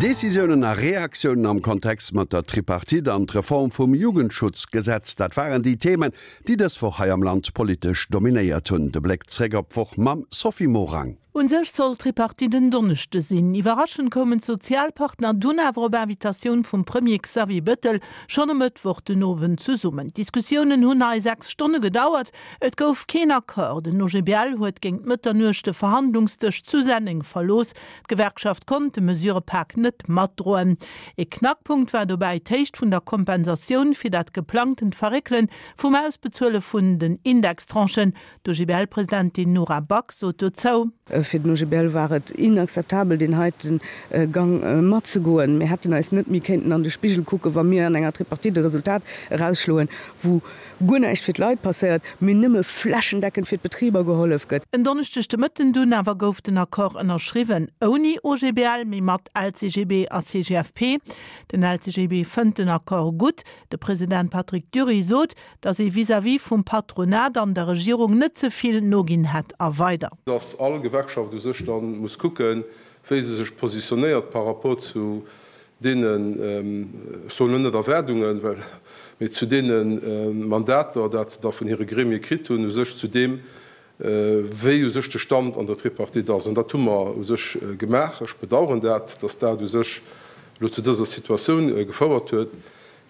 Decisiounen a Reaktiounen am Kontext mat der Tripartite an d'Reform vum Jugendschutzgesetz, dat waren déi Themen, déi dës Woch hei am Land politesch dominéiert hunn. De Bléck zréck op d'Woch mam Sophie Morang. Un sech sollt d'Tripartite en Donneschde sinn. Iwwerraschend koumen d'Sozialpartner dunn awer op Invitatioun vum Premier Xavier Bettel schonn e Mëttwoch den Owend zesummen. D'Diskussiounen hunn hei 6 Stonne gedauert. Et gouf keen Accord. Den OGBL huet géint Mëtternuecht de Verhandlungsdësch zu Senneng verlooss. D'Gewerkschaft konnt de Mesurëpak net matdroen. Ee Knackpunkt war dobäi d'Héicht vun der Kompensatioun fir dat geplangtent Verréckele vum Ausbezuele vun den Indextranchen. D'OGBL-Presidentin Nora Back sot dozou. Fir den OGBL war et inakzeptabel, deen heite Gang matzegoen. Mir hätten eis net méi kéinten an de Spigel kucken, wa mir an enger Tripartite e Resultat erausschloen, wou guer näischt fir d'Leit passéiert, mee nëmme flächendeckend fir d'Betriber gehollef gëtt. En Donneschdeg de Mëtten dunn awer gouf den Accord ënnerschriwwen, ouni OGBL, mee mat LCGB a CGFP. Den LCGB fënnt den Accord gutt. De President Patrick Dury sot, datt ee vis-à-vis vum Patronat an der Regierung net ze vill noginn hätt a weider. Datt all Gewerkschaft u sech da muss kucken, wéi se sech positionéiert par rapport zu deenen, ech soen elo net Erwaardungen, well, mee zu deene Mandater, dat se da vun hire Gremie kritt hunn, u sech zu deem, wéi u sech de Stand an der Tripartite ass. An dat hu mer u sech gemaach. Ech bedauern dat, dass dat u sech elo zu dëser Situatioun gefouert huet.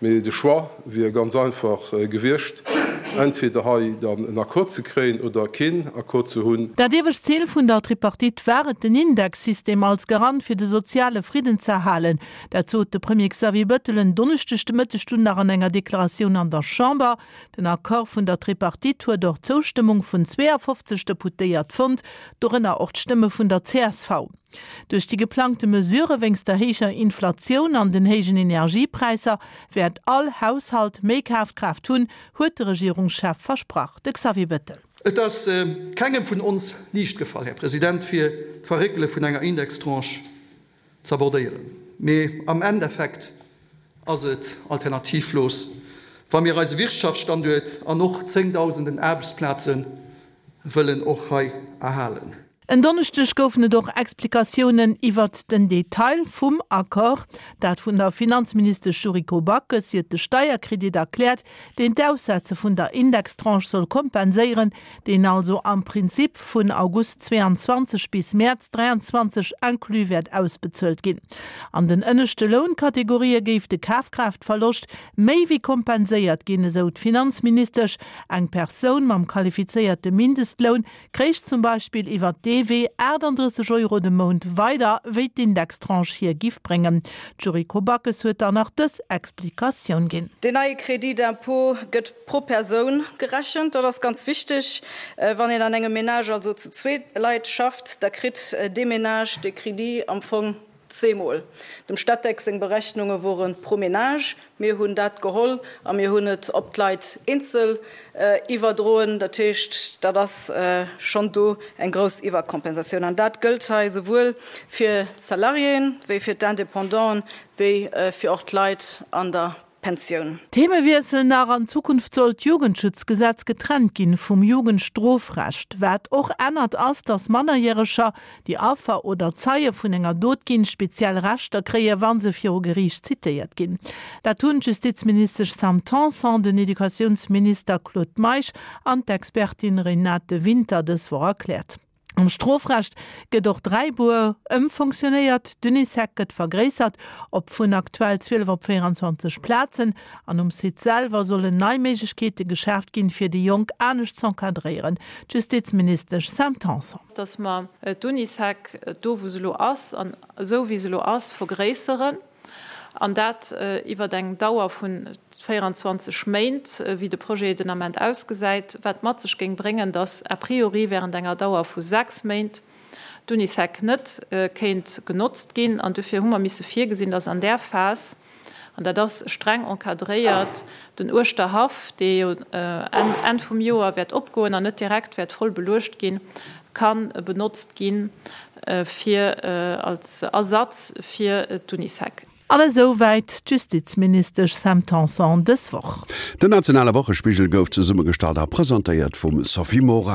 Mee de Choix wier ganz einfach gewiescht, entweder hei dann en Accord ze kréien oder keen Accord ze hunn. Dat iewescht Zil vun der Tripartite war et, den Indexsystem als Garant fir de soziale Fridden z'erhalen. Dat sot de Premier Xavier Bettel en Donneschdeg de Mëtteg dunn nach an enger Deklaratioun an der Chamber. Den Accord vun der Tripartite huet och d'Zoustëmmung vun 52 Deputéiert fonnt, dorënner och d'Stëmme vun der csv. Duerch déi geplangte Mesurë wéinst der héijer Inflatioun an den héijen Energiepräisser wäert all Haushalt méi Kafkraaft hunn, huet de Regierungschef versprach. De Xavier Bettel. Et ass kengem vun ons liicht gefall, Här President, fir d'Verréckele vun enger Indextranche z'abordéieren. Mee am Endeffekt ass et alternativlos, wa mir eise Wirtschaftsstanduert an och zéngdausenden Aarbechtsplaze wëllen och hei erhalen. En Donneschdeg goufen et och Explikatiounen iwwert den Detail vum Accord. Dat vun der Finanzministesch Yuriko Backes. Si huet de Steierkredit erkläert, deen d'Aussetze vun der Indextranche soll kompenséieren, deen also am Prinzip vun August 22 bis Mäerz 23 inclus wäert ausbezuelt ginn. An den ënneschte Lounkategorië géif de Kafkraaftverloscht méi wéi kompenséiert ginn, esou d'Finanzministesch. Eng Persoun mam qualifizéierte Mindestloun Kréich zum Beispill iwwert dee Wee 38 Euro de Mount weider, wéi d'Indextranche hir giff bréngen. D'Yuriko Backes huet dann nach dës Explikatioun ginn. Deen neie Crédit d'impôt gëtt pro Persoun gerechent. Dat ass ganz wichteg. Wann een an engem Ménage also zu zwee Leit schafft, da kritt dee Ménage dee Crédit am Fong Zweemol. Dem Statec seng Berechnunge wore pro Ménage. Mir hunn dat geholl a mir hunn et op d'Leit eenzel iwwerdroen. Dat heescht, dat ass schonn do eng grouss Iwwerkompensatioun. An dat gëllt hei souwuel fir d'Salariéen, wéi fir d'Independanten, wéi fir och d'Leit an der Pensioun. Themewiessel nach, An Zukunft soll d'Jugendschutzgesetz getrennt ginn vum Jugendstrofrecht. Wat och ännert ass, datt Mannerjäreger, déi Affer oder Zeie vun enger Dot ginn, speziell Rechter kréie wa se viru Geriicht zitéiert ginn. Dat hunn d'Justizministesch Sam Tanson, den Educatiounsminister Claude Meisch an d'Expertin Renate Winter dës Woch erkläert. Am Strofrecht gëtt och Dräibuer ëmfonctionnéiert, d'Unisec gëtt vergréissert op vun aktuell 12 op 24 Plazen an um Site selwer sollen nei Méiglechkeete geschaaft ginn, fir déi Jonk anescht z'encadréieren. D'Justizministesch Sam Tanson. Datt mer d'Unisec do wou se elo ass an esou wéi se elo ass vergréisseren. An dat iwwer eng Dauer vu 24 Méint, wéi de Projet den Ament ausgesäit, wat mat sech géing bréngen, datt a priori während enger Dauer vu 6 Méint d'Unisec net kéint genotzt ginn. An dofir hu mer misse virgesinn, datt an där Phas, an dat ass streng encadréiert, den Uerschterhaff, dee jo Enn vum Joer wäert opgoen an net direkt wäert voll beluecht ginn, ka benotzt ginn, fir als Ersatz fir d'Unisec. An esou wäit d'Justizministesch Sam Tanson dës Woch. Den nationale Wochespigel gouf zesummegestallt a presentéiert vum Sophie Morang.